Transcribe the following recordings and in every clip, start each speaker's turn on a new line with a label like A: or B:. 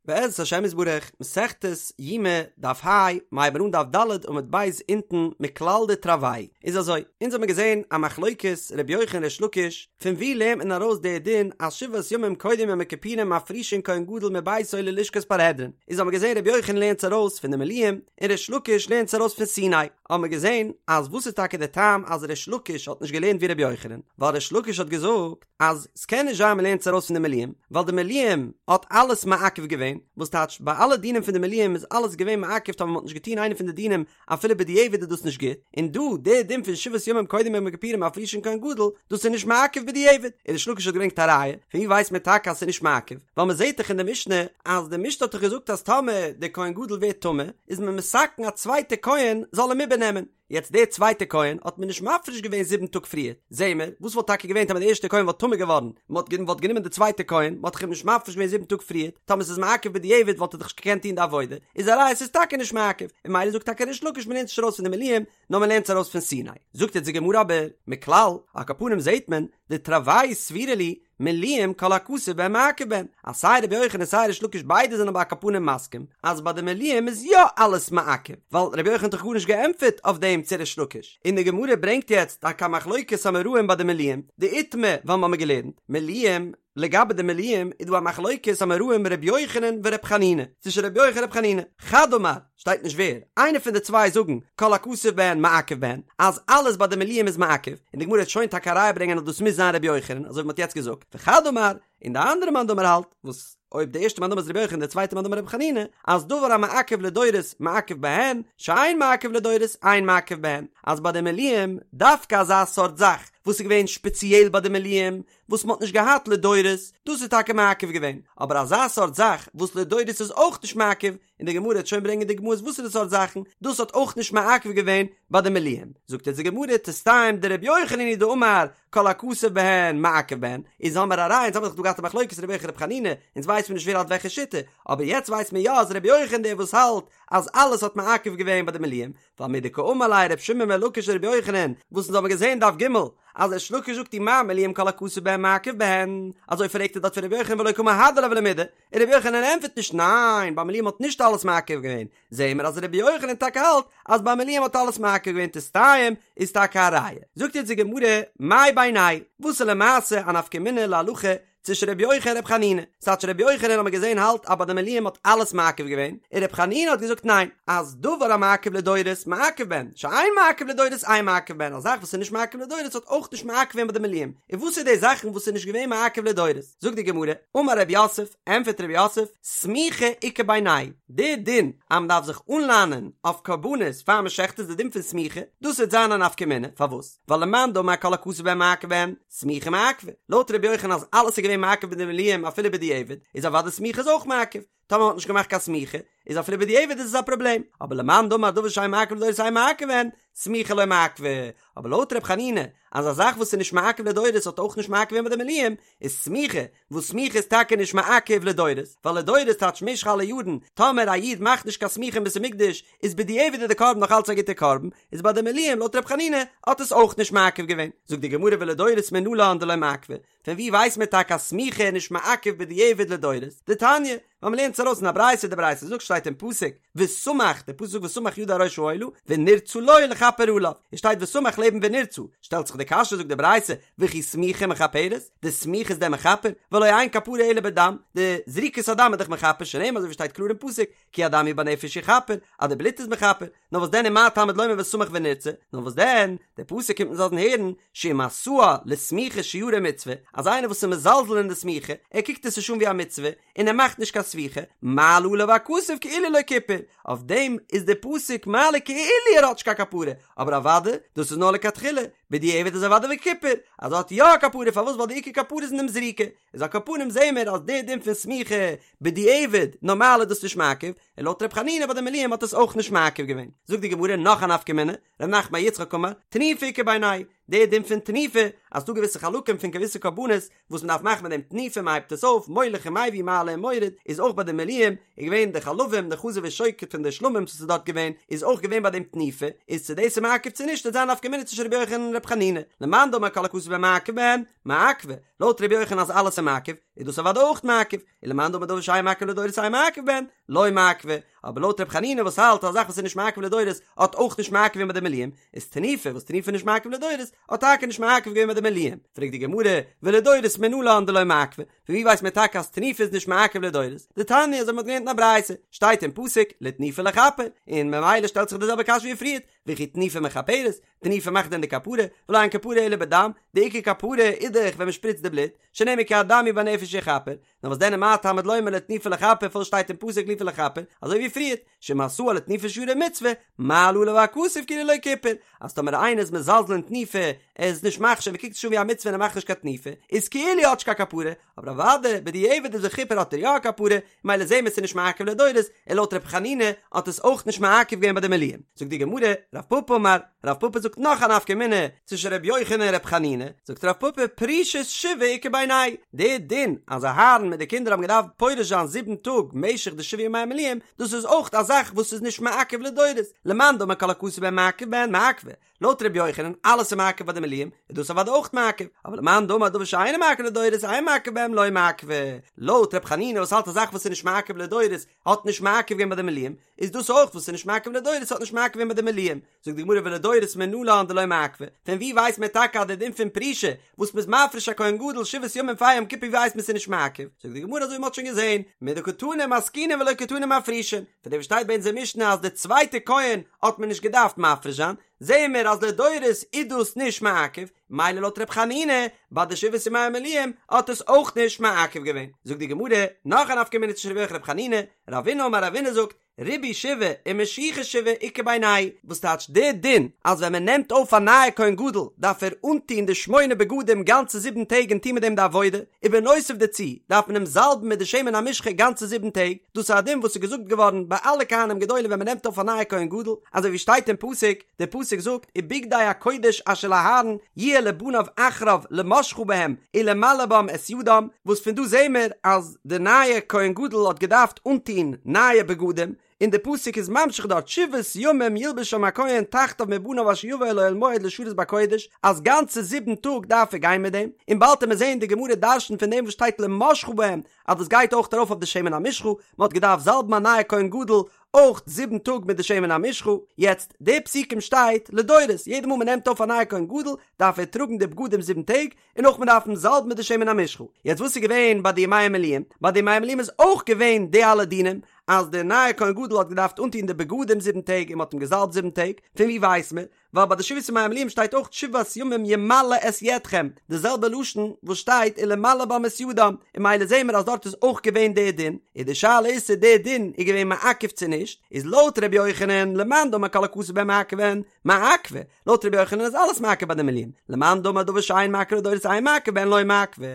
A: בעזרת השם יתברך, מסכת יומא, דף ה, מ'הייבן אן דף ד' עמוד ב' אונטן, מכלל דתרוייהו. איז אזוי, אונז האבן געזען א מחלוקת ר' יוחנן ריש לקיש, פון וואו לערנט מען ארויס די דין אז שבעת ימים קודם יום הכיפורים מפרישין כהן גדול מביתו ללשכת פרהדרין, איז האבן מיר געזען ר' יוחנן לערנט עס ארויס פון די מילואים, און ריש לקיש לערנט עס ארויס פון סיני. האבן מיר געזען אז וואס איז טאקע די טעם אז ריש לקיש האט נישט געלערנט ווי ר' יוחנן, ווייל ריש לקיש האט געזאגט, אז ס'קען נישט זיין מ'לערנט עס ארויס פון די מילואים, ווייל די מילואים האט אלעס מעכב געווען, וואס טייטש ביי אלע דינים פון די מילואים איז אלעס געווען מעכב טאמער מ'האט נישט געטון איינע פון די דינים אפילו בדיעבד איז דאס נישט גוט, און דא די דין פון שבעת ימים קודם יום הכיפורים מפרישין כהן גדול, דאס איז נישט מעכב בדיעבד, און ריש לקיש האט געברענגט א ראיה, פון ווי ווייסט מען טאקע אז ס'איז נישט מעכב, ווייל מ'זעט דאך אין די משנה אז די משנה האט דאך געזאגט אז טאמער די כהן גדול ווערט טמא איז מען מתקן א צווייטע כהן זאל אים איבערנעמען, יעצט דער צווייטער כהן האט מען נישט מפריש געווען זיבן טאג פריער, זעהן מיר, וואס וואלט טאקע געווען טאמער דער ערשטער כהן וואלט טמא געווארן, מען האט וואלט גענומען די צווייטע כהן, מען האט דאך אים נישט מפריש געווען זיבן טאג פריער, טאמער ס'איז מעכב בדיעבד וואלט ער דאך נישט געקענט טון די עבודה, איז א ראיה ס'איז טאקע נישט מעכב, און ממילא זאגט טאקע ריש לקיש מען לערנט נישט ארויס פון די מילואים, נאר מען לערנט עס ארויס פון סיני. זאגט יעצט די גמרא אבער, מכלל, על כל פנים זעהט מען, דתרוייהו סבירא להו, מילואים כל הכתוב בהן מעכב בהן, אז סיי רבי יוחנן און סיי ריש לקיש ביידע זענען אבער על כל פנים מסכים אז ביי די מילואים איז יא אלעס מעכב, ווייל רבי יוחנן האט דאך גארנישט געענטפערט אויף דעם צו ריש לקיש, און די גמרא ברענגט יעצט טאקע א מחלוקת אמוראים ביי די מילואים, דאיתמר ווייל מ'האמיר געלערנט מילואים, לגבי די מילואים איז דא א מחלוקת אמוראים רבי יוחנן ורבי חנינא, צווישן רבי יוחנן און רבי חנינא, חד אמר, שטייט נישט ווער, איינער פון די צוויי זאגן כל הכתוב בהן מעכב בהן, אז אלעס ביי די מילואים איז מעכב, און די גמרא וועט שוין טאקע א ראיה ברענגען אז דאס מוז זיין רבי יוחנן, אזוי ווי מ'האט יעצט געזאגט, וחד אמר, און די אנדערע מאן דאמר האלט, וואס אויב די ערשטע מאן דאמר איז רבי יוחנן די צווייטע מאן דאמר רבי חנינא, אז דבר המעכב לדורות מעכב בהן, שאין מעכב לדורות אין מעכב בהן, אז ביי די מילואים, דווקא אזא סארט זאך וואס איז געווען שפעציעל ביי די מילואים, וואס מ'האט נישט געהאט לדורות, דאס איז טאקע מעכב געווען, אבער אזא סארט זאך וואס לדורות איז אויך נישט מעכב, און די גמרא וועט שוין ברענגען דוגמאות וואסערע סארט זאכן דאס האט אויך נישט מעכב געווען ביי די מילואים, זאגט אונז די גמרא תסתיים דרבי יוחנן היא דאמר כל הכתוב בהן מעכב בהן, איז האמער א ראיה אונז האמער דאך דא געהאט א מחלוקת רבי יוחנן רבי חנינא, אונז ווייסט מיר נישט ווער האלט וועלכע שיטה, אבער יעצט ווייסט מען יא אז רבי יוחנן דער וואס האלט אז אלעס האט מעכב געווען ביי די מילואים, ווייל מדקאמר ליה ר' שמעון בן לקיש לרבי יוחנן, וואס אונז האבן געזען דף ג' אז ריש לקיש זאגט ומה מילואים כל הכתוב בהן מעכב בהן, אזוי פרעגט ער דארט פון רבי יוחנן ולא קא מהדר ליה ולא מידי, און רבי יוחנן ענטפערט נישט ניין ביי מילואים האט נישט אלעס מעכב געווען, זעהן מיר אז רבי יוחנן טאקע האלט אז ביי מילואים האט אלעס מעכב געווען תסתיים איז טאקע א ראיה. זאגט יעצט די גמרא מאי בינייהו וואס איז למעשה א נפקא מינה להלכה צווישן רבי יוחנן און רבי חנינא, ס'טייטש רבי יוחנן האט מען געזען האלט אז ביי די מילואים האט אלעס מעכב געווען, און רבי חנינא האט געזאגט ניין, אז דבר המעכב לדורות מעכב בהן, שאין מעכב לדורות אין מעכב בהן, א זאך וואס איז נישט מעכב לדורות האט אויך נישט מעכב געווען ביי די מילואים, און וואס איז די זאכן וואס איז נישט געווען מעכב לדורות? זאגט די גמרא, אמר רב יוסף, ענטפערט רב יוסף, סמיכה איכא בינייהו, די דין אז מען דארף זיך אנלאנען אויף קרבנות פאר מען שעכט איז די דין פון סמיכה, דאס וועט זיין א נפקא מינה, פארוואס? ווייל למאן דאמר כל הכתוב בהן מעכב בהן, סמיכה מעכבא, לויט ר' יוחנן אז אלעס איז געווען מעכב ביי די מילואים אפילו בדיעבד, איז אוודאי סמיכה איז אויך מעכב, טאמער מ'האט נישט געמאכט קיין סמיכה, איז אפילו בדיעבד איז עס א פראבלעם, אבער למאן דאמר דבר שאין מעכב לדורות אין מעכב בהן, סמיכה לא מעכבא, אבער לויט ר' חנינא אז א זאך וואס איז נישט מעכב לדורות האט אויך נישט מעכב געווען ביי די מילואים, איז סמיכה, וואס סמיכה איז טאקע נישט מעכב לדורות, ווייל לדורות טייטש משך אלע יארן, טאמער א איד מאכט נישט קיין סמיכה אין בית המקדש, איז בדיעבד איז די קרבן נאך אלץ א גוטע קרבן, איז ביי די מילואים לויט ר' חנינא האט עס אויך נישט מעכב געווען. זאגט די גמרא ולדורות מנלן דלא מעכבא, פון ווי ווייסט מען טאקע אז סמיכה איז נישט מעכב בדיעבד לדורות? דתניא, ווייל מ'לערנט עס ארויס אין א ברייתא, די ברייתא זאגט שטייט אין פסוק וסמך, די פסוק זאגט וסמך ידו על ראש העולה ונרצה לו לכפר עליו, עס שטייט וסמך לעבן ונרצה, שטעלט זיך די קשיא זאגט די ברייתא וכי סמיכה מכפרת, די סמיכה איז דען מכפר? והלא אין כפרה אלא בדם, די זריקת הדם איז דאך מכפר שנאמר אזוי ווי שטייט קלאר אין פסוק כי הדם הוא בנפש יכפר, אז די בלוט איז מכפר, נאר וואס דען ומה תלמוד לומר וסמך ונרצה, נאר וואס דען, דער פסוק קומט אונז לאזן הערן, שאם עשאה לסמיכה שיירי מצוה, אז איינער וואס איז מזלזל אין די סמיכה, ער קוקט עס נישט אן ווי א מצוה, און ער מאכט נישט קיין סמיכה, מעלה עליו הכתוב כאילו לא כיפר, אויף דעם איז דער פסוק מעלה כאילו ער האט נישט קיין כפרה, אבער אוודאי, דאס איז נאר לכתחילה, בדיעבד איז אוודאי וכיפר, אז ער האט יא א כפרה, פארוואס ווייל די עיקר כפרה איז אין דעם זריקה, איז על כל פנים זעהן מיר אז דער דין פון סמיכה בדיעבד נארמאל איז דאס נישט מעכב, און לויט ר' חנינא ביי די מילואים האט עס אויך נישט מעכב געווען. זאגט די גמרא נאך א נפקא מינה, ר' נחמן בר יצחק אמר, תנופה איכא בינייהו, דער דין פון תנופה, אז ס'דא געוויסע חלקים פון געוויסע קרבנות וואס מ'דארף מאכן מיט דעם תנופה מ'הייבט עס אויף, מוליך ומביא מעלה ומוריד, איז אויך ביי די מילואים, איז געווען די חלבים, די חזה ושוק פון די שלמים וואס איז דארט געווען, איז אויך געווען ביי דעם תנופה, איז צו דאס איז מעכב צו נישט וועט זיין נפקא מינה צווישן רבי יוחנן און רבי חנינא, למאן דאמר כל הכתוב בהן מעכב בהן, מעכבא, לויט רבי יוחנן אז אלעס איז מעכב, איז דאס אוודאי אויך מעכב, ולמאן דאמר דבר שאין מעכב לדורות אין מעכב בהן, לא מעכבא, אבער לויט ר' חנינא וואס האלט אז א זאך וואס איז נישט מעכב לדורות האט אויך נישט מעכב געווען ביי די מילואים, איז תנופה וואס תנופה איז נישט מעכב לדורות האט טאקע נישט מעכב געווען ביי די מילואים, פרעגט די גמרא, ולדורות מנלן דלא מעכבא, פון ווי ווייסט מען טאקע אז תנופה איז נישט מעכב לדורות? דתניא אזוי מ'האט געלערנט אין א ברייתא, שטייט אין פסוק לתנופה לכפר, און ממילא שטעלט זיך די זעלבע קשיא ווי פריערט, וכי תנופה מכפרת, תנופה מאכט דען די כפרה, והלא אין כפרה אלא בדם, די עיקר כפרה איז דאך ווען מ'שפריצט די בלוט, שנאמר כי הדם הוא והנפש יכפר, נאר וואס דען מה תלמוד לומר לתנופה לכפר פארוואס שטייט אין פסוק לתנופה לכפר, אזוי ווי פריערט, שאם עשאה לתנופה שרי מצוה, מעלה עליו הכתוב כאילו לא כיפר, אז טאמער איינער איז מזלזל אין תנופה, ער איז נישט מחשיב, ער קוקט עס נישט אן ווי א מצוה און ער מאכט נישט קיין תנופה, איז כאילו ער האט נישט קיין כפרה, אבער אוודאי בדיעבד איז וכיפר האט ער יא א כפרה, ממילא זעהן מיר ס'איז נישט מעכב לדורות, און לויט ר' חנינא האט עס אויך נישט מעכב געווען ביי די מילואים. זאגט די גמרא, רב פפא אמר, רב פפא זאגט נאך א נפקא מינה צווישן ר' יוחנן און ר' חנינא, זאגט רב פפא פרישת שבעה איכא בינייהו, די דין אז אהרן מיט די קינדער האבן געדארפט פורש זיין זיבן טאג משך די שבעה ימי המילואים, דאס איז אויך א זאך וואס איז נישט מעכב לדורות, למאן דאמר כל הכתוב בהן מעכב בהן מעכבא, לויט ר' יוחנן אלעס איז מעכב ביי די מילואים, איז דאס אוודאי אויך מעכב, אבער למאן דאמר דבר שאינו מעכב לדורות אין מעכב בהם לא מעכבא, לויט ר' חנינא וואס האלט א זאך וואס איז נישט מעכב לדורות האט נישט מעכב געווען ביי די מילואים, איז דאס אויך וואס איז נישט מעכב לדורות האט נישט מעכב געווען ביי די מילואים, זאגט די גמרא ולדורות מנלן דלא מעכבא, פון ווי ווייסט מען טאקע אז די דין פון פרישה וואס מ'איז מפריש א כהן גדול שבעת ימים פאר יום כיפור ווי ווייסט מען ס'איז נישט מעכב, זאגט די גמרא אזוי ווי מ'האט שוין געזען, מדקתני מזקינין ולא קתני מפרישין, פון דעם וואס שטייט ביי אונזער משנה אז די צווייטע כהן האט מען נישט געדארפט מפריש זיין, זעען מיר אז לדורות איז דאס נישט מעכב, מילא לויט ר' חנינא ביי די שבעת ימי המילואים האט עס אויך נישט מעכב געווען. זאגט די גמרא, נאך א נפקא מינה צווישן רבי יוחנן און ר' חנינא, רבינא אמר רבינא זאגט, ריבוי שבעה ומשיחה שבעה איכא בינייהו, וואס טייטש די דין אז ווען מען נעמט אויף א נייע כהן גדול דארף ער אנטוהן די שמונה בגדים גאנצע זיבן טעג און טוהן מיט דעם די עבודה, ובנוסף דערצו דארף מען אים זאלבן מיט די שמן המשחה גאנצע זיבן טעג, דאס איז א דין וואס איז געזאגט געווארן ביי אלע כהנים גדולים ווען מען נעמט אויף א נייע כהן גדול, אזוי ווי שטייט אין פסוק, דער פסוק זאגט ובגדי הקודש אשר לאהרן יהיה לבניו אחריו למשחה בהם ולמלא בם את ידם, וואס פון דא זעהן מיר אז די נייע כהן גדול האט געדארפט אנטוהן נייע בגדים, און די פסוק איז ממשיך דארט שבעת ימים ילבשם הכהן תחתיו מבניו אשר יבא אל אוהל מועד לשרת בקודש, אז גאנצע זיבן טאג דארף ער גיין מיט דעם, און באלד וועט מען זעהן די גמרא דרש'נט פון דעם וואס שטייט למשחה בהם אז דאס גייט אויך ארויף אויף די שמן המשחה, מען האט געדארפט זאלבן א נייע כהן גדול אויך זיבן טאג מיט די שמן המשחה, יעצט די פסוקים שטייט לדורות, יעדע מאל מען נעמט אויף א נייע כהן גדול דארף ער טראגן די בגדים זיבן טעג, און אויך מען דארף אים זאלבן מיט די שמן המשחה, יעצט וואס איז געווען ביי די ימי המילואים? ביי די ימי המילואים איז אויך געווען די אלע דינים, אז די נייע כהן גדול האט געדארפט אנטון די בגדים זיבן טעג און מען האט אים געזאלבט זיבן טעג, פון ווי ווייסט מען? ווייל ביי די שבעת ימי המילואים שטייט אויך שבעת ימים ימלא את ידכם, די זעלבע לשון וואס שטייט ולמלא בם את ידם, און ממילא זעהן מיר אז דארט איז אויך געווען די דין, און די שאלה איז צו די דין איז געווען מעכב צו נישט, איז לויט ר' יוחנן למאן דאמר כל הכתוב בהן מעכב בהן מעכבא, לויט ר' יוחנן איז אלעס מעכב ביי די מילואים, למאן דאמר דבר שאין מעכב לדורות אין מעכב בהן לא מעכבא,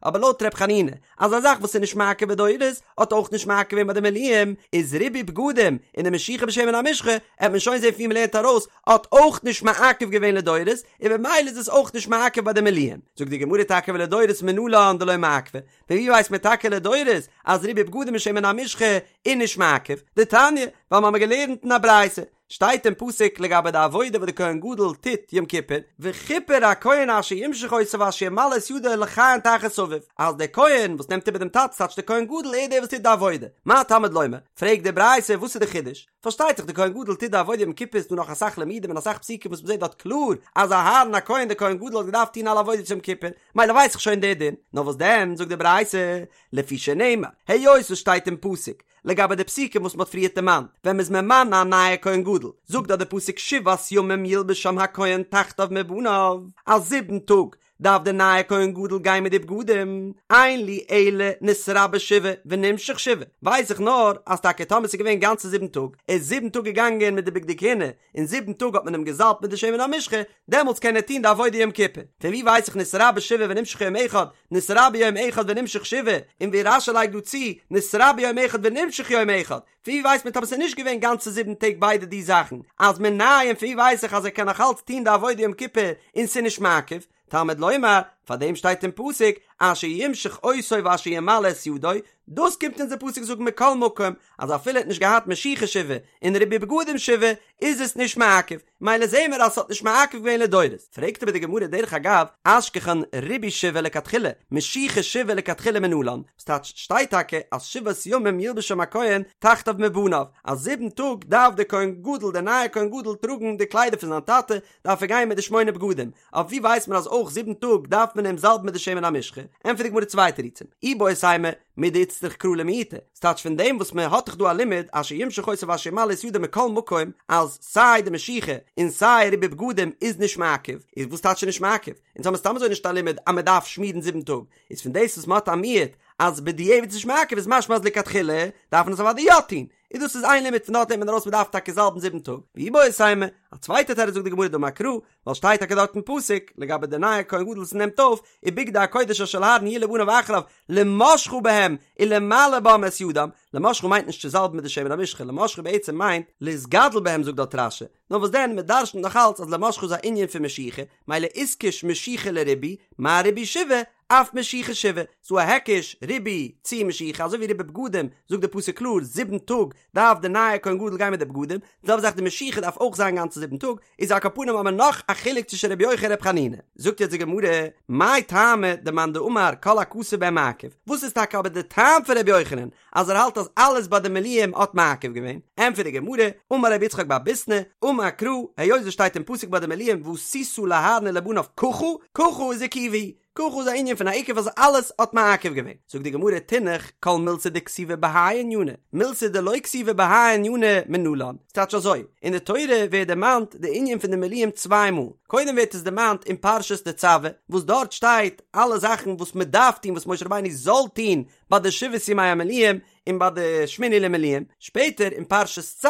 A: אבער לויט ר' חנינא אז א זאך וואס איז נישט מעכב בדורות האט אויך נישט מעכב געווען ביי די מילואים, איז ריבוי בגדים און די משיחה בשמן המשחה, עט מען שוין זען פון ווי מ'לערנט ארויס, האט אויך נישט מעכב געווען לדורות, און במילא איז עס אויך נישט מעכב ביי די מילואים. זאגט די גמרא טאקע ולדורות מנלן דלא מעכבא, פון ווי ווייסט מען טאקע לדורות אז ריבוי בגדים און שמן המשחה איז נישט מעכב? דתניא, ווייל מ'האמיר געלערנט אין א ברייתא, שטייט אין פסוק לגבי די עבודה וואס די כהן גדול טוט יום כיפור, וכיפר הכהן אשר ימשח אותו ואשר ימלא את ידו לכהן תחת אביו, אז דער כהן וואס נעמט איבער דעם טאטע ס'טייטש דער כהן גדול ער איז דער וואס טוט די עבודה, מה תלמוד לומר? פרעגט די ברייתא וואס איז די חידוש? פארשטייט זיך די כהן גדול טוט די עבודה יום כיפור איז דא נאך אסאך לימודים און אסאך פסוקים וואס מ'זעט דארט קלאר אז אהרן הכהן דער כהן גדול האט געדארפט טון אלע עבודות יום כיפור, מילא ווייס איך שוין די דין, נאר וואס דען זאגט די ברייתא לפי שנאמר היות עס שטייט אין פסוק לגבי די פסוקים וואס מ'האט פריערט דערמאנט, ווען מ'איז ממנה א נייע כהן גדול, זאגט דארט די פסוק שבעת ימים ילבשם הכהן תחתיו מבניו, אז זיבן טאג דארף די נייע כהן גדול גיין מיט די בגדים, אין לי אלא נתרבה שבעה ונמשח שבעה, ווייס איך נאר אז טאקע טאמער ס'איז געווען גאנצע זיבן טאג, ער איז זיבן טאג געגאנגען מיט די בגדי כהונה, און זיבן טאג האט מען אים געזאלבט מיט די שמן המשחה, דעמאלטס קען ער טון די עבודה יום כיפור. פון ווי ווייס איך נתרבה שבעה ונמשח יום אחד, נתרבה יום אחד ונמשח שבעה, און ווי רש"י לייגט דא צו, נתרבה יום אחד ונמשח יום אחד, פון ווי ווייסט מען טאמער ס'איז נישט געווען גאנצע זיבן טעג ביידע די זאכן, אז מנין פון ווי ווייס איך אז ער קען נאך אלץ טון די עבודה יום כיפור און ס'איז נישט מעכב? תלמוד לומר, פאר דעם שטייט אין פסוק, אשר ימשח אותו ואשר ימלא את ידו, דאס קומט אונז דער פסוק זאגן מכל מקום, אז אפילו ער האט נישט געהאט משיחה שבעה און ריבוי בגדים שבעה, איז עס נישט מעכב. מילא זעהן מיר אז ס'האט נישט מעכב געווען לדורות. פרעגט אבער די גמרא דרך אגב, אשכחן ריבוי שבעה לכתחילה, משיחה שבעה לכתחילה מנלן, ס'טייטש שטייט טאקע אז שבעת ימים ילבשם הכהן תחתיו מבניו, אז זיבן טאג דארף דער כהן גדול דער נייער כהן גדול טראגן די קליידער פון זיין טאטע, דארף ער גיין מיט די שמונה בגדים, אויף ווי ווייסט מען אז אויך זיבן טאג דארף מען אים זאלבן מיט די שמן המשחה? ענטפערט די גמרא צוויי תירוצים, איבעית אימא, מדאיצטריך קרא למעוטי, ס'טייטש פון דעם וואס מען האט דאך דא א לימוד אשר ימשח אותו ואשר ימלא את ידו מכל מקום אז סיי די משיחה און סיי ריבוי בגדים איז נישט מעכב, איז וואס טייטש נישט מעכב? אונז האמיר סתם אזוי נישט א לימוד אז מען דארף שמירן זיבן טאג, איז פון דאס וואס מען האט א מיעוט אז בדיעבד איז נישט מעכב איז משמע אז לכתחילה דארף מען עס אוודאי יא טון, איז דאס איז איין לימוד פון דארט נעמט מען ארויס מען דארף טאקע זאלבן זיבן טאג, ואיבעית אימא, א צווייטע תירוץ זאגט די גמרא דאמר קרא, ווייל שטייט טאקע דארט אין פסוק לגבי די נייע כהן גדול וואס נעמט אויף, ובגדי הקודש אשר לאהרן יהיו לבניו אחריו למשחה בהם ולמלא בם את ידם, למשחה מיינט נישט צו זאלבן מיט די שמן המשחה, למשחה בעצם מיינט להתגדל בהם זאגט דארט רש"י, נאר וואס דען מען דרש'נט נאך אלץ אז למשחה איז א ענין פון משיחה, מילא איתקש משיחה לריבוי, מה ריבוי שבעה, אף משיחה שבעה, ס'דא א היקש, ריבוי צו משיחה, אזוי ווי ריבוי בגדים, זאגט די פסוק קלאר, זיבן טאג דארף די נייע כהן גדול גיין מיט די בגדים, די זעלבע זאך די משיחה דארף אויך זיין גאנצע זיבן טאג, איז על כל פנים האבן מיר נאך א חילוק צווישן רבי יוחנן און רבי חנינא. זאגט יעצט די גמרא, מאי טעמא דמאן דאמר כל הכתוב בהן מעכב, וואס איז טאקע אבער די טעם פון רבי יוחנן אז ער האלט אז אלעס ביי די מילואים האט מעכב געווען? ענטפערט די גמרא, אמר רבי יצחק בר ביסנא, אמר קרא, היות עס שטייט אין פסוק ביי די מילואים ועשית לאהרן ולבניו ככה, ככה איז עיכובא, ככה איז א ענין פון א עיכוב אז אלעס האט מעכב געווען. זאגט די גמרא תינח כל מילתא דכתיבא בהאי ענינא, מילתא דלא כתיבא בהאי ענינא מנלן. ס'טייטש אזוי, אין די תורה ווערט דערמאנט די ענין פון די מילואים צוויי מאל, קודם ווערט עס דערמאנט אין פרשת תצוה, וואס דארט שטייט אלע זאכן וואס מען דארף טון וואס משה רבינו זאל טון ביי די שבעת ימי המילואים און ביי די שמיני למילואים, שפעטער אין פרשת צו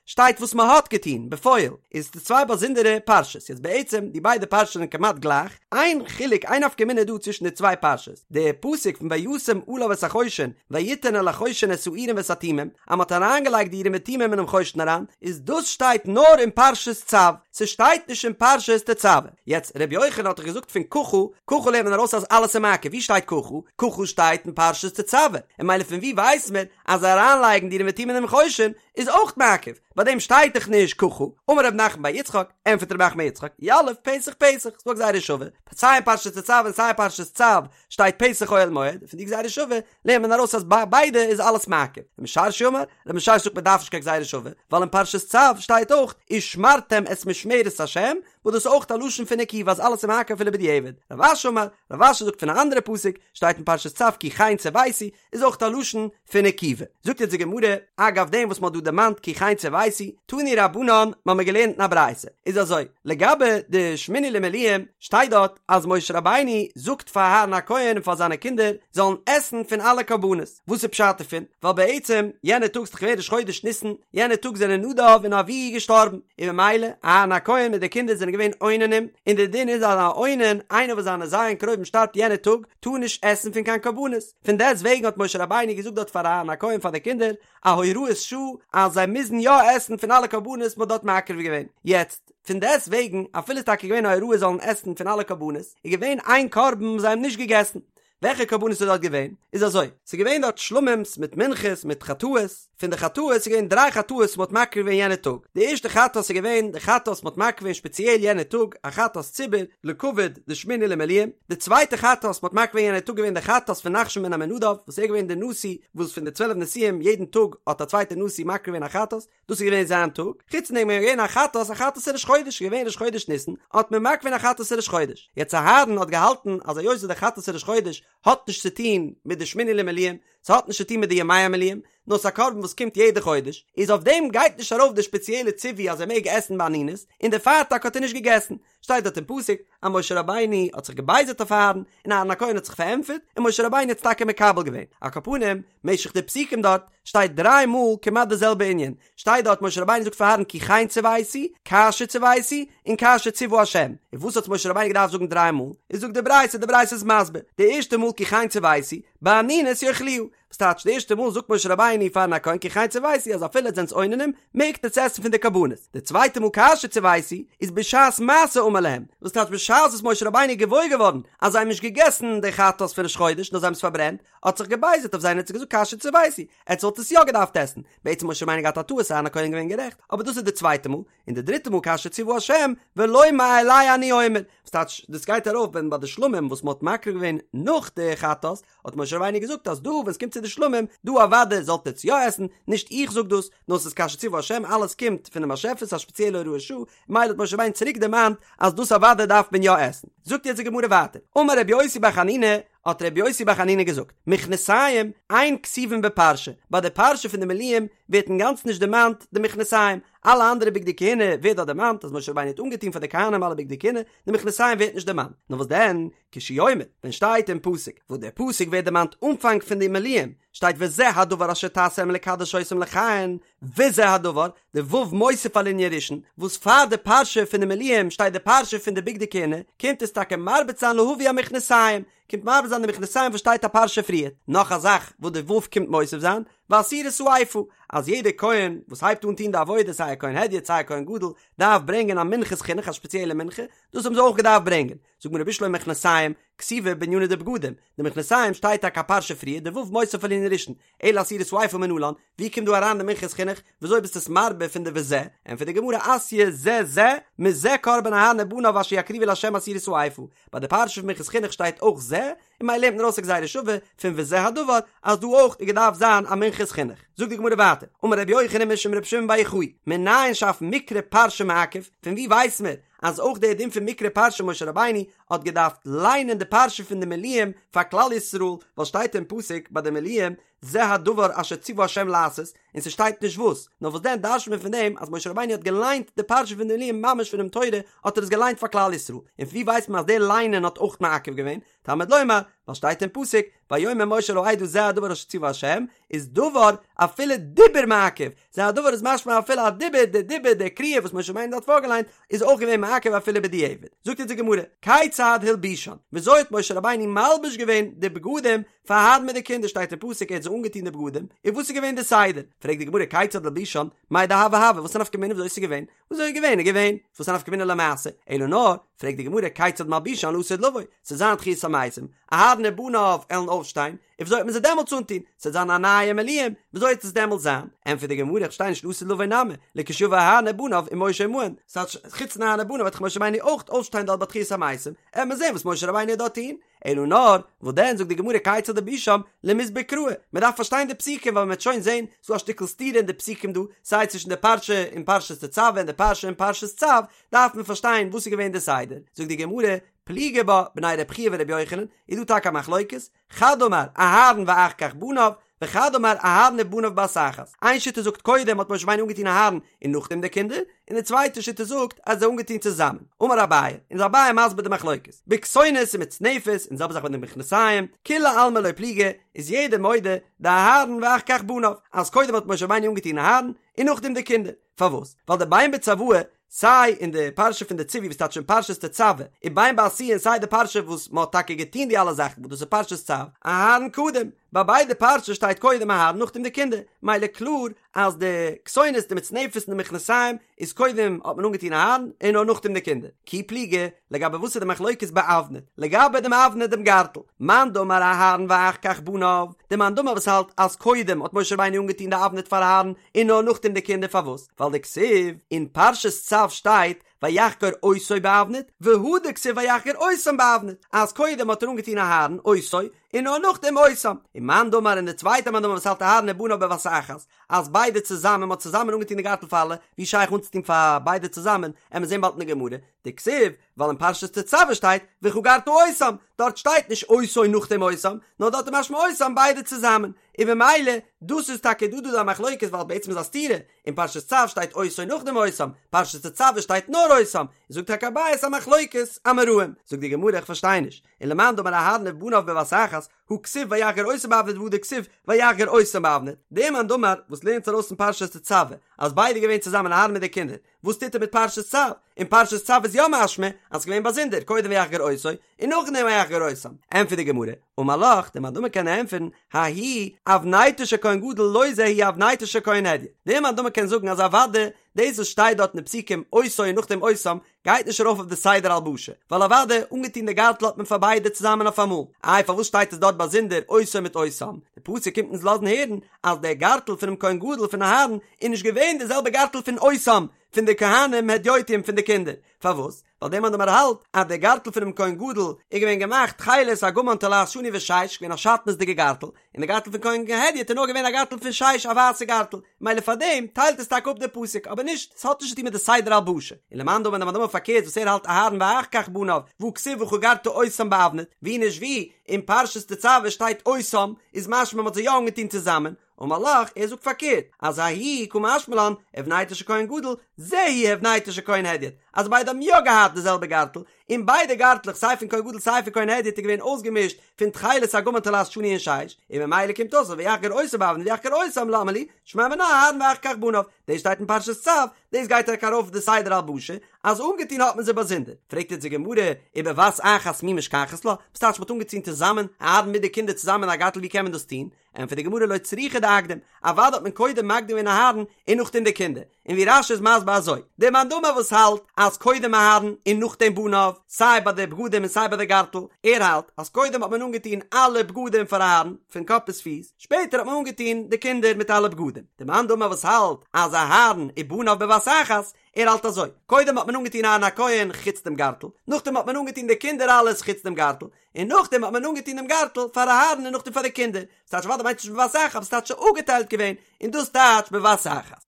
A: שטייט וואס מען האט געטון בפועל, איז די צוויי באזונדערע פרשות, יעצט בעצם די ביידע פרשות זענען כמעט גלייך, איין חילוק איין נפקא מינה איז דא צווישן די צוויי פרשות, די פסוק פון וישם עליו את החושן ויתן אל החושן את האורים ואת התומים, אז מען האט אריינגעלייגט די אורים ותומים אינעם חושן אריין, איז דאס שטייט נאר אין פרשת צו, ס'שטייט נישט אין פרשת תצוה. יעצט ר' יוחנן האט דאך געזאגט פון ככה, ככה לערנט מען ארויס אז אלעס איז מעכב, ווי שטייט ככה? ככה שטייט אין פרשת תצוה, און ממילא פון ווי ווייסט מען אז אריינלייגן די אורים ותומים אינעם חושן איז אויך מעכב, ביי דעם שטייט דאך נישט ככה, אמר רב נחמן בר יצחק, ענטפערט רב נחמן בר יצחק, יליף פתח פתח, ס'דא א גזירה שווה, סיי אין פרשת תצוה און סיי אין פרשת צו שטייט פתח אוהל מועד, פון די גזירה שווה לערנט מען ארויס אז ביי ביידע איז אלעס מעכב, רב משרשיא אמר, רב משרשיא זאגט מען דארף נישט קיין גזירה שווה, ווייל אין פרשת צו שטייט אויך ושמרתם את משמרת השם, וואס דאס איז אויך א לשון פון עיכובא אז אלעס איז מעכב אפילו בדיעבד, רב אשי אמר, רב אשי זאגט פון א אנדערע פסוק, שטייט אין פרשת צו כי כן צויתי, איז אויך א לשון פון עיכובא. זאגט יעצט די גמרא, אגב דעם וואס מ'האט דא דערמאנט כי כן צויתי, תנו רבנן, מ'האמיר געלערנט אין א ברייתא, איז אזוי, לגבי די שמיני למילואים, שטייט דארט אז משה רבינו זאגט פאר אהרן הכהן און פאר זיינע קינדער זאלן עסן פון אלע קרבנות, וואס איז פשט דערפון? ווייל בעצם יענע טאג ס'איז דאך געווען ראש חודש ניסן, יענע טאג זענען נדב און אביהוא געשטארבן, און ממילא אהרן הכהן מיט די קינדער זענען געווען אוננים, און די דין איז אז א אונן, איינער וואס זיינע ז' קרובים שטארבט יענע טאג, טאר נישט עסן פון קיין קרבנות, פון דעסט וועגן האט משה רבינו געזאגט דארט פאר אהרן הכהן פאר די קינדער א הוראת שעה אז זיי מוזן יא עסן פון אלע קרבנות מ'האט דארט מקריב געווען, יעצט פון דעסט וועגן אפילו איז טאקע געווען א הוראה זאלן עסן פון אלע קרבנות, איז געווען איין קרבן וואס זיי האבן נישט געגעסן, וועלכע קרבנות איז דארט געווען? איז אזוי, ס'איז געווען דארט שלמים'ס מיט מנחות מיט חטאות, פון די חטאות איז געווען דריי חטאות וואס מ'האט מקריב געווען יענע טאג, די ערשטע חטאת איז געווען די חטאת וואס מ'האט מקריב געווען שפעציעל יענע טאג, א חטאת ציבור, לכבוד די שמיני למילואים, די צווייטע חטאת וואס מ'האט מקריב געווען יענע טאג געווען די חטאת פון נחשון בן עמינדב, וואס ער איז געווען די נשיא וואס פון די צוועלף נשיאים יעדן טאג האט א צווייטע נשיא מקריב געווען א חטאת, דאס איז געווען זיין טאג, חוץ פון דעם איז געווען א חטאת, א חטאת ראש חודש, איז געווען ראש חודש ניסן, האט מען מקריב געווען א חטאת ראש חודש, יעצט אהרן האט געהאלטן אז היות די חטאת ראש חודש האט נישט צו טון מיט די שמיני למילואים, ס'האט נישט צו טון מיט די ימי המילואים, נאר ס'איז א קרבן וואס קומט יעדע חודש, איז אויף דעם גייט נישט ארויף די שפעציעלע ציווי אז ער מעג עסן באנינות, און דערפאר טאקע האט ער נישט געגעסן. שטייט דארט אין פסוק אז משה רבינו האט זיך געבייזערט אויף אהרן, און אהרן הכהן האט זיך פארענטפערט, און משה רבינו האט עס טאקע מקבל געווען. על כל פנים, משך די פסוקים דארט, שטייט דריי מאל כמעט די זעלבע ענין, שטייט דארט משה רבינו זאגט פאר אהרן כי כן צויתי, כאשר צויתי, און כאשר צוה השם, און וואס האט משה רבינו געדארפט זאגן דריי מאל? איז זאגט די ברייתא, די ברייתא איז מסביר, די ערשטע מאל כי כן צויתי, באנינות יאכלוה, וואס טייטש די ערשטע מאל זאגט משה רבינו פאר אהרן הכהן כי כן צויתי אז אפילו עטס זענטס אוננים מעגט עטס עסן פון די קרבנות, די צווייטע מאל כאשר צויתי איז בשעת מעשה אמר. ואמר להם, וואס טייטש בשעת וואס משה רבינו איז געוואויר געווארן אז זיי האבן נישט געגעסן די חטאת פון ראש חודש נאר זיי האבן עס פארברענט, האט זיך געבייזערט אויף זיי און האט זיי געזאגט כאשר צויתי, עטס וואלט עס יא געדארפט עסן, בעצם משה רבינו געהאט א טעות אהרן הכהן געווען גערעכט, אבער דאס איז די צווייטע מאל, און די דריטע מאל כאשר צוה השם ולא מאלי אני אומר, וואס טייטש דאס גייט ארויף ווען ביי די שלמים וואס מען האט מקריב געווען נאך די חטאת, האט משה רבינו געזאגט אז דא ווען עס קומט צו די שלמים, דא אוודאי זאלט עטס יא עסן, נישט איך זאג דאס, נאר ס'איז כאשר צוה השם אלעס קומט פונעם באשעפער ס'איז א שפעציעלע הוראת שעה, מילא האט משה רבינו צוריק דערמאנט אז דאס אוודאי דארף מען יא עסן. זאגט יעצט די גמרא ווייטער, אמר רבי יוסי בר חנינא, האט רבי יוסי בר חנינא געזאגט, מכנסיים אין כתובין בפרשה, ביי די פרשה פון די מילואים ווערט אינגאנצן נישט דערמאנט די מכנסיים, אלע אנדערע בגדי כהונה ווערט דארט דערמאנט אז משה רבינו האט אנגעטון פאר די כהנים אלע בגדי כהונה, די מכנסיים ווערט נישט דערמאנט, נאר וואס דען, כשהוא אומר, ווען שטייט אין פסוק, וואס דער פסוק ווערט דערמאנט אנפאנג פון די מילואים, שטייט וזה הדבר אשר תעשה לקדש אותם לכהן, וזה הדבר, די ו' מוסיף על ענין ראשון, וואס פאר די פרשה פון די מילואים שטייט די פרשה פון די בגדי כהונה, קומט עס טאקע מרבה זיין להביא המכנסיים, קומט מרבה זיין די מכנסיים וואס שטייט א פרשה פריער. נאך א זאך וואס די ו' קומט מוסיף זיין, ועשירית האיפה, אז יעדער כהן וואס הייבט אן טון די עבודה סיי א כהן הדיוט סיי א כהן גדול, דארף ברענגען א מנחת חינוך א שפעציעלע מנחה, דאס האבן זיי אויך געדארפט ברענגען. זאגט די גמרא בשלמא מכנסיים, כתיבי בענינא דבגדים, די מכנסיים שטייט טאקע א פרשה פריער, די ו' מוסיף על ענין ראשון, אלא עשירית האיפה מנלן, ווי קומט דא אריין די מנחת חינוך, וויאזוי ביסטו עס מרבה פון די וזה? ענטפערט די גמרא אתיא זה זה, מזה קרבן אהרן ובניו אשר יקריבו לה' עשירית האיפה, ביי די פרשה פון מנחת חינוך שטייט אויך זה, און ממילא לערנט מען ארויס א גזירה שווה פון וזה הדבר אז דא אויך איז געדארפט זיין א מנחת חינוך. זאגט די גמרא ווייטער, אמר רבי יוחנן משום רבי שמעון בר יוחאי, מנין שאף מקרא פרשה מעכב, פון ווי ווייס מען אז אויך דער דין פון מקרא פרשה משה רבינו האט געדארפט ליינען די פרשה פון די מילואים פאר כלל ישראל, ווייל שטייט אין פסוק ביי די מילואים זה הדבר אשר ציוה ה' לעשות, און ס'שטייט נישט וואס, נאר וואס דען דרש'נט מען פון דעם אז משה רבינו האט געליינט די פרשה פון די מילואים ממש פונעם תורה האט ער עס געליינט פאר כלל ישראל, און פון ווי ווייסט מען אז דער ליינען האט אויך מעכב געווען? תלמוד לומר, ווייל שטייט אין פסוק, ויאמר משה אל העדה זה הדבר אשר ציוה ה', איז דבר אפילו דיבור מעכב, זה הדבר איז משמע אפילו א דיבור, די דיבור, די קריאה וואס משה רבינו האט פארגעליינט, איז אויך געווען מעכב אפילו בדיעבד. זאגט אונז די גמרא, כיצד הלבישן, וויאזוי האט משה רבינו מלביש געווען די בגדים פאר אהרן מיט די קינדער שטייט אין פסוק ער האט זיי אנגעטון די בגדים, און וואס איז געווען די סדר? פרעגט די גמרא כיצד הלבישן, מאי דהוה הוה, וואס איז נפקא מינה וויאזוי עס איז געווען? וויאזוי איז געווען איז געווען, וואס איז נפקא מינה למעשה? אלא נאר, פרעגט די גמרא כיצד מלבישן לעתיד לבוא, ס'וועט זיין תחיית המתים, אהרן ובניו עלן אויפשטיין, און וויאזוי וועט מען זיי דעמאלטס אנטון? ס'וועט זיין א נייע מילואים, וויאזוי וועט עס דעמאלטס זיין? ענטפערט די גמרא איך פארשטיי נישט לעתיד לבוא נמי, לכשיבא אהרן ובניו ומשה עמהן, ס'טייטש חוץ פון אהרן ובניו וועט דאך משה רבינו אויך אויפשטיין דארט ביי תחיית המתים, עט מען זען וואס משה רבינו וועט דארט טון, אלא נאר, וואס דען זאגט די גמרא כיצד הלבישם למסבר קראי, מען דארף פארשטיין די פסוקים ווייל מען וועט שוין זען ס'דא א שטיקל סתירה אין די פסוקים דא, סיי צווישן די פרשה אין פרשת תצוה און די פרשה אין פרשת צו, דארף מען פארשטיין וואס איז געווען די סדר, זאגט די גמרא, פליגי בה בני רב חייא ורבי יוחנן, איז דא טאקע א מחלוקת, חד אמר אהרן ואחר כך בניו, וחד אמר אהרן ובניו בבת אחת, איין שיטה זאגט קודם האט משה רבינו אנגעטון אהרן און נאכדעם די קינדער, און די צווייטע שיטה זאגט אז זיי אנגעטון צוזאמען. אמר אביי, און איז אביי מסביר די מחלוקת, בכתונת ומצנפת און די זעלבע זאך ביי די מכנסיים, כולי עלמא לא פליגי, איז יעדער מודה דאהרן ואחר כך בניו, אז קודם האט משה רבינו אנגעטון אהרן און נאכדעם די קינדער, פארוואס? ווייל דבין בצוואה סיי אין די פרשה פון די ציווי וואס טייטש אין פרשת תצוה, און בין בעשיה און סיי די פרשה וואס מען האט טאקע געטון די אלע זאכן וואס דאס איז פרשת צו, אהרן קדים, ביי ביידע פרשות שטייט קודם אהרן נאכדעם די קינדער, מילא קלאר אז די כתונת די מצנפת און די מכנסיים איז קודם האט מען אנגעטון אהרן און נאר נאכדעם די קינדער, כי פליגי, לגבי וואס איז די מחלוקת באבנט, לגבי דעם אבנט דעם גארטל, מאן דאמר אהרן ואחר כך בניו, די מאן דאמר וואס האלט אז קודם האט משה רבינו אנגעטון די אבנט פאר אהרן און נאר נאכדעם די קינדער פארוואס? ווייל דכתיב אין פרשת צו שטייט ויחגור אותו באבנט והדר כתיב ויחגור אותם באבנט אז קודם האט ער אנגעטון אהרן אותו און נאר נאכדעם אותם ומאן דאמר און די צווייטע מאן דאמר וואס האלט אהרן ובניו בבת אחת אז ביידע צוזאמען מ'האט צוזאמען אנגעטון די גארטל פאר אלע ווי שייך אנצוטון פאר ביידע צוזאמען עמיר זען באלד אין די גמרא דכתיב ווייל אין פרשת תצוה שטייט וחגרת אותם, דארט שטייט נישט אותו נאכדעם אותם, נאר דארט איז משמע אותם ביידע צוזאמען, און במילא דאס איז טאקע דא דא די מחלוקת ווייל בעצם איז א סתירה, אין פרשת צו שטייט אותו נאכדעם אותם, פרשת תצוה שטייט נאר אותם, זאגט טאקע אביי ס'איז א מחלוקת אמוראים, זאגט די גמרא איך פארשטיי נישט, ולמאן דאמר אהרן ובניו בבת אחת, הא כתיב ויחגור אותו באבנט והדר כתיב ויחגור אותם באבנט, דער מאן דאמר וואס לערנט ארויס אין פרשת תצוה אז ביידע געווען צוזאמען אהרן מיט די קינדער, וואס טוט ער מיט פרשת צו? אין פרשת צו איז יא משמע אז ס'געווען באזונדער, קודם ויחגור אותו און נאכדעם ויחגור אותם. ענטפערט די גמרא, אמר לך, דער מאן דאמר קען ענטפערן, ההיא אבנטו של כהן גדול לא זו היא אבנטו של כהן הדיוט. דער מאן דאמר קען זאגן אז אוודאי דאס וואס שטייט דארט אין די פסוקים אותו און נאכדעם אותם, גייט נישט ארויף אויף די סדר הלבשה, ווייל אוודאי אנגעטון די גארטל האט מען פאר ביידע צוזאמען אויפאמאל, איי פארוואס שטייט עס דארט באזונדער אותו מיט אותם? די פסוק קומט אונז לאזן הערן אז דער גארטל פונעם כהן גדול פון אהרן איז נישט געווען די זעלבע גארטל פון אותם פון די כהנים הדיוטים פון די קינדער, פארוואס? ווייל דער מאן דאמר האלט אז דער גארטל פונעם כהן גדול איז געווען געמאכט תכלת ארגמן תולעת שני ושש, געווען א שעטנז'דיגע גארטל, און די גארטל פון כהן הדיוט איז נאר געווען א גארטל פון שש א ווייסע גארטל, מילא פאר דעם טיילט עס טאקע אפ דער פסוק, אבער נישט, ס'האט נישט צו טון מיט די סדר הלבשה. און למאן דאמר דער מאן דאמר פארקערט וואס ער האלט אהרן ואחר כך בניו, והא כתיב וחגרת אותם באבנט, ווי נישט ווי, אין פרשת תצוה שטייט אותם, איז משמע מ'האט זיי יא אנגעטון צוזאמען, אמר לך, ער זאגט פארקערט, אז ההוא קא משמע לן, הבנתו של כהן גדול, זו היא הבנתו של כהן הדיוט, אז ביידע האבן יא געהאט די זעלבע גארטל, און ביידע גארטלעך סיי פון כהן גדול סיי פון כהן הדיוט איז געווען אויסגעמישט פון תכלת ארגמן תולעת שני און שש, און ממילא קומט אויס אז ויחגור אותו באבנט ויחגור אותם למה לי, שמע מינה אהרן ואחר כך בניו, דאס שטייט אין פרשת צו, דאס גייט טאקע ארויף די סדר הלבשה, אז אנגעטון האט מען זיי באזונדער, פרעגט יעצט די גמרא, ובבת אחת מי משכחת לה, וואס טייטש מ'האט אנגעטון צוזאמען, אהרן מיט די קינדער צוזאמען א גארטל ווי קען מען דאס טון? ענטפערט די גמרא לא צריכא דאקדים, אוודאי האט מען קודם מקדים געווען אהרן און נאכדעם די קינדער, און ווי רש"י איז מסביר אזוי, דער מאן דאמר וואס האלט אז קודם אהרן און נאכדעם בניו, סיי ביי די בגדים און סיי ביי די גארטל, ער האלט אז קודם האט מען אנגעטון אלע בגדים פאר אהרן, פון קאפ ביז פיס, שפעטער האט מען אנגעטון די קינדער מיט אלע בגדים. דער מאן דאמר וואס האלט אז אהרן ובניו בבת אחת, ער האלט אזוי, קודם האט מען אנגעטון אהרן הכהן חוץ דעם גארטל, נאכדעם האט מען אנגעטון די קינדער אלעס חוץ דעם גארטל, און נאכדעם האט מען אנגעטון דעם גארטל פאר אהרן און נאכדעם פאר די קינדער, ס'טייטש אוודאי מיינט נישט בבת אחת, ס'טייטש אפגעטיילט געווען, און דאס טייטש בבת אחת.